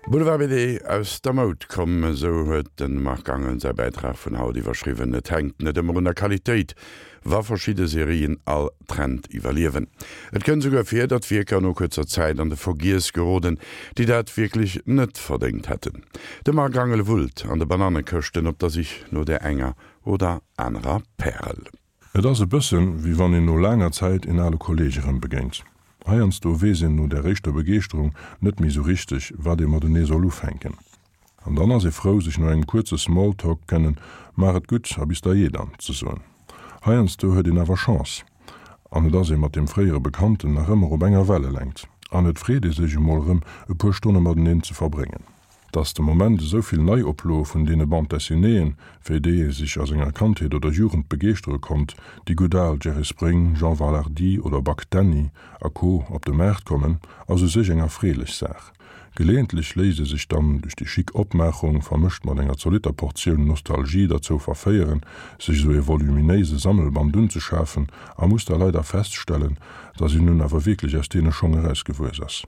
Boulevard BD, Aus der Moud komm, esou huet de Marc Angel säi Bäitrag vun haut iwwerschriwwen. Et hänkt net ëmmer un der Qualitéit, wa verschidde Serien all Trend iwwerliewen. Et kënnt esouguer vir, datt Wierker no kuerzer Zäit an de Vergiess geroden, déi dat wierklech net verdéngt hätten. De Marc Angel wullt an de Banannekëschten op der Sich no där enger oder anerer Pärel. Et ass e bëssen, wéi wann een no laanger Zäit een ale Kolleeg erëm begéint. Heiansdo weess een no där éischter Begeeschterung net méi sou richteg, wat ee matenee soll ufänken. An dann ass ee frou, sech no engem kuerze Smalltalk kënnen Maach et gutt a bis dajee dann ze soen. Heiansdo huet een awer Chance an et ass ee mat deem fréiere Bekannten nach ëmmer op enger Wellelängt an et freet ee sech emol erëm e puer Stonne mateneen ze verbréngen. Dass de Moment esou vill Neioploe vun deene Bande Dessinéeën, fir déi ee sech a senger Kandheet oder Jugend begeeschtere konnt, déi gutt al Jerry Spring, Jean Valhardi oder Buck Danny a Co. Op de Maart kommen, ass u sech eng erfreelech Saach. Geleeëntlech léisst ee sech dann duerch déi chic Opmaachung, vermëscht mat enger zolitter Portioun Nostalgie, derzou verféieren, sech esou ee voluminéise Sammelband unzeschafen a muss da leider feststellen, dass een nun awer wierklech aus deene Schong erausgewuess ass.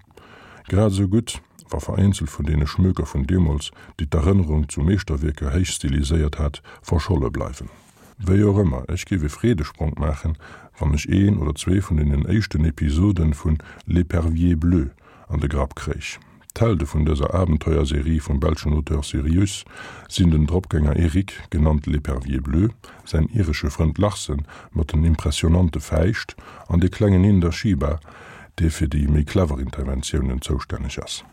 Grad esou gutt, wa vereenzelt vun deene Schmöker vun deemools, déi d'Erënnerung zu Meeschterwierker héich stiliséiert hat, verscholle bleiwen. Wéi och ëmmer, ech géif e Freedespronk maachen, wann ech een oder zwee vun deenen éischten Episoden vun L'Epervier bleu an de Grapp kréich. D'Helde vun dëser Abenteuerserie vum belschen Auteur Sirius sinn den Dropgänger Eric, genannt L'Epervier bleu, säin iresche Frënd Larsen mat den impressionante Fäischt an de klengen Inder Shiba, dee fir déi méi clever Interventiounen zoustänneg ass.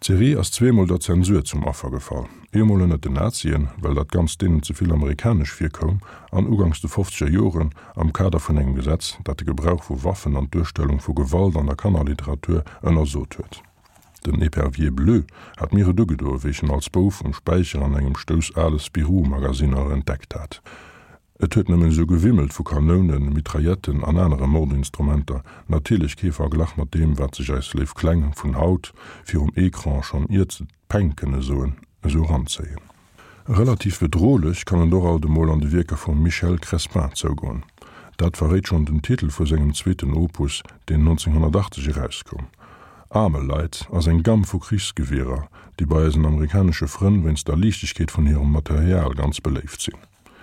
D'Serie ass zweemol der Zensur zum Affer gefall, eemol ënnert den Nazien, well dat Ganzt deenen ze vill amerikanesch virkoum, an uganks de fofzeger Joren am Kader vun engem Gesetz, dat de Gebrauch vu Waffen an d'Duerstellung vu Gewalt an der Kannerliteratur ënnersot huet. Den Epervier Bleu hat mir et ugedoe wéi ech en als Bouf um Späicher an engem Stouss ale Spirou-Magasinner entdeckt hat. Et huet nëmmen esou gewimmelt vu Kanounen, Mitrailletten an anere Mordinstrumenter, natierlech kee Verglach mat deem, wat sech eis léif Kleng vun haut virum Ecran, schonn iert se Peng kënne soen, esou eranzéien. Relativ bedrohlech kann et och alt emol an de Wierker vum Michel Crespin zougoen. Dat verréit schonn den Titel vu sengem zweeten Opus, deen 1980 erauskoum. Armalite ass eng Gamm vu Krichsgewierer, déi bei eisen amerikanesche Frënn wéinst der Liichtegkeet vun hirem Material ganz beléift sinn.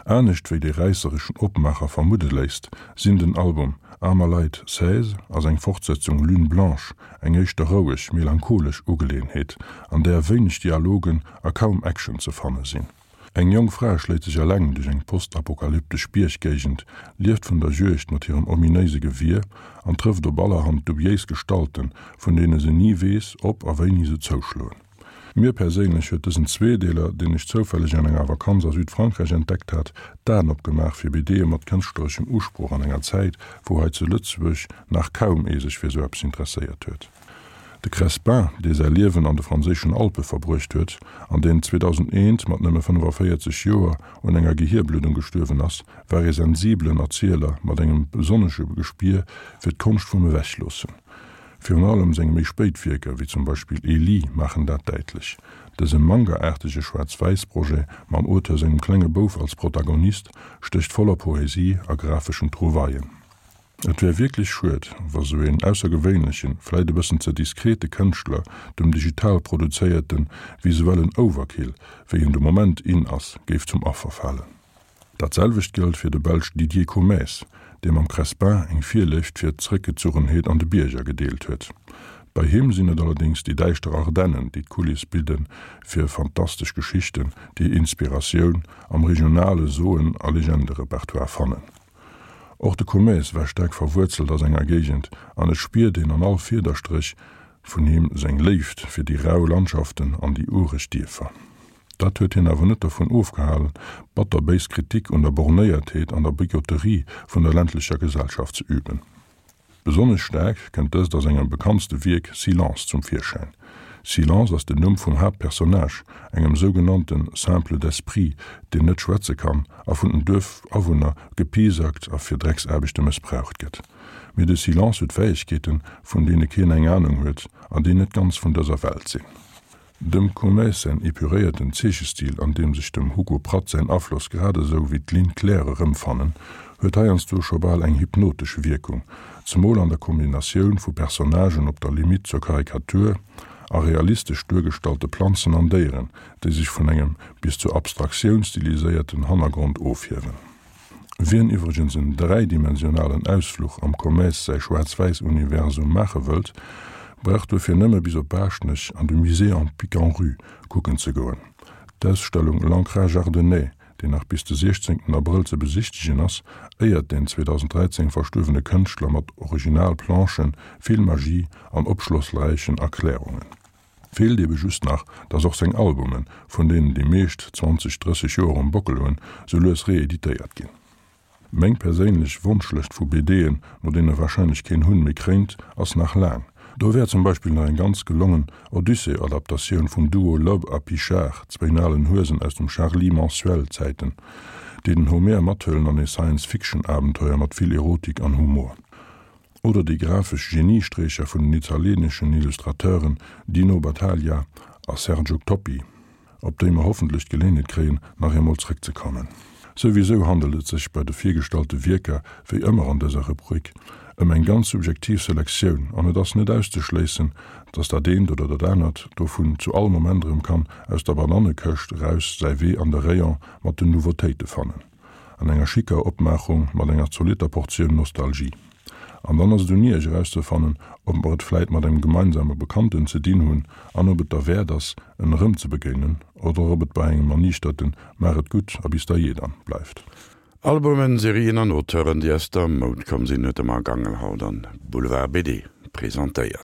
Anescht wéi dee räissereschen Opmaacher vermudde léisst, sinn den Album Armalite 16 a seng Fortsetzung Lune Blanche eng éischter roueg, melancholesch Ugeleeënheet, an där wéineg Dialogen a kaum Action ze fanne sinn. Eng jonk Fra schléit sech eleng duerch eng postapokalyptesch Bierggéigend, lieft vun der Juegd mat hirem ominéise Gewier an trëfft op allerhand dubiéis Gestalten, vun deene se ni weess, ob a wéini se zouschloen. Mir perséinlech huet dësen Zweedeeler, deen ech zoufälleg an enger Vakanz a Südfrankräich entdeckt hat, d'Aen opgemaach fir BDe mat kënschtlereschem Usproch an enger Zäit, wou hei zu Lëtzebuerg nach kaum ee sech fir sou eppes interesséiert huet. De Crespin, dee säi Liewen an de franséischen Alpe verbruecht huet an deen 2001 mat nëmme 45 Joer un enger Gehierbluddung gestuerwen ass, war ee sensibelen Erzieler mat engem besonnesche Gespier fir d'Konscht vum Ewechloossen. Virun allem seng méi spéit Wierker, wéi zum Beispill Ellie, maachen dat däitlech. Dëse Manga-aartege Schwaarz-Wäiss-Projet mam Auteur sengem klenge Bouf als Protagonist stécht voller Poesie a grafeschen Trouvaillen. Et wär wierklech schued, wa sou een aussergewéinlechen, vläit e bëssen ze diskrete Kënschtler dem digital produzéierte visuellen Overkill, wéi en de Moment in ass, géif zum Affer falen. Dat selwecht gëllt fir de Belsch Didier Comaes, dee mam Crespin eng Virléift fir d'Zeréckgezuchenheet an de Bierger gedeelt huet. Bei him sinn et allerdéngs déi däischter Ardennen, déi d'Kuliss bidde fir fantastesch Geschichten, déi Inspiratioun am regionale Soen a Legenderepertoire fannen. Och de Comaes war staark verwuerzelt a senger Géigend an et spiert een an all Fiederstréch vun him seng Léift fir déi rau Landschaften an déi ureg Dierfer. Dat huet hien awer net dervun ofgehalen, batterbéis Kritik un der Bornéiertheet an der Bigotterie vun der ländlecher Gesellschaft ze üben. Besonnesch staark kënnt dëst a sengem bekanntste Wierk Silence zum Virschäin. Silence ass den Numm vum Haaptpersonnage, engem sougenannte Simple d'esprit, deen net schwätze kann a vun den Duerfawunner gepiesackt a fir Drecksaarbechte mëssbraucht gëtt. Mee de Silence huet Fäegkeeten, vun deene keen eng Anung huet an déi net ganz vun dëser Welt sinn. Dem Comaes säin epuréierten Zeechestil, an deem sech dem Hugo Pratt säin Afloss grad esou wéi d'Ligne claire erëmfannen, huet heiansdo scho bal eng hypnotesch Wierkung, zemol an der Kombinatioun vu Personnagen op der Limitt zur Karikatur a realistesch duergestallte Planzen an Déieren, déi sech vun engem bis zur Abstraktioun stiliséierten Hannergrond ofhiewen. Wien iwwregens en dräidimensionalen Ausfluch am Comaes säi Schwaarz-Wäiss-Universum maache wëllt, brauch duerfir nëmme bis op Baaschtnech an de Musée en Pic-en-Rue kucken ze goen. D'Ausstellung L'ancrage ardennais, déi nach bis de 16 Abrëll ze besichtegen ass, éiert den 2013 verstuerwene Kënschtler mat Original-Planchen, vill Magie an opschlossräichen Erklärungen. Feelt ebe just nach, dass och seng Albumen, vun deenen déi meescht 20, 30 Joer um Bockel hunn, sou lues reeditéiert ginn. Meng perséinlech Wonschlëscht vu BDen, no deene warscheinlech keen Hunn méi kréint, ass nach laang. Do wär zum Beispill nach eng ganz gelongen Odyssee-Adaptatioun vum Duo Loeb a Pichard, zwéin alen Huesen aus dem Charlie Mensuel-Zäiten, déi den Homer mathëllen an ee Science-Fiction-Abenteuer mat vill Erotik an Humor. Oder déi grafesch Geniesträcher vun den italieeneschen Illustrateuren Dino Battaglia a Sergio Toppi, op déi mer hoffentlech d'Geléenheet kréien, nach eemol zréckzekommen. Souwisou handelt et sech bei de virgestallte Wierker, wéi ëmmer an dëser Rubrik, ëm eng ganz subjektiv Selektioun an et ass net auszeschléissen, dass dat eent oder dat anert dovun zu all Moment erëm kann aus der Banannekëscht eraus säi Wee an de Rayon mat den Nouveautéite fannen. An enger schicker Opmaachung mat enger zolitter Portioun Nostalgie. An dann ass et un Iech erauszefannen, ob mer et vläit mat engem gemeinsame Bekannten ze dinn hunn an ob et derwäert ass, en erëmzebegéinen, oder ob et bei engem erniichterten Maach et gutt a bis da jee dann bleift. Albumen, Serien an Auteuren, déi aus der Moud komm sinn, huet de Marc Angel haut an Boulevard BD presentéiert.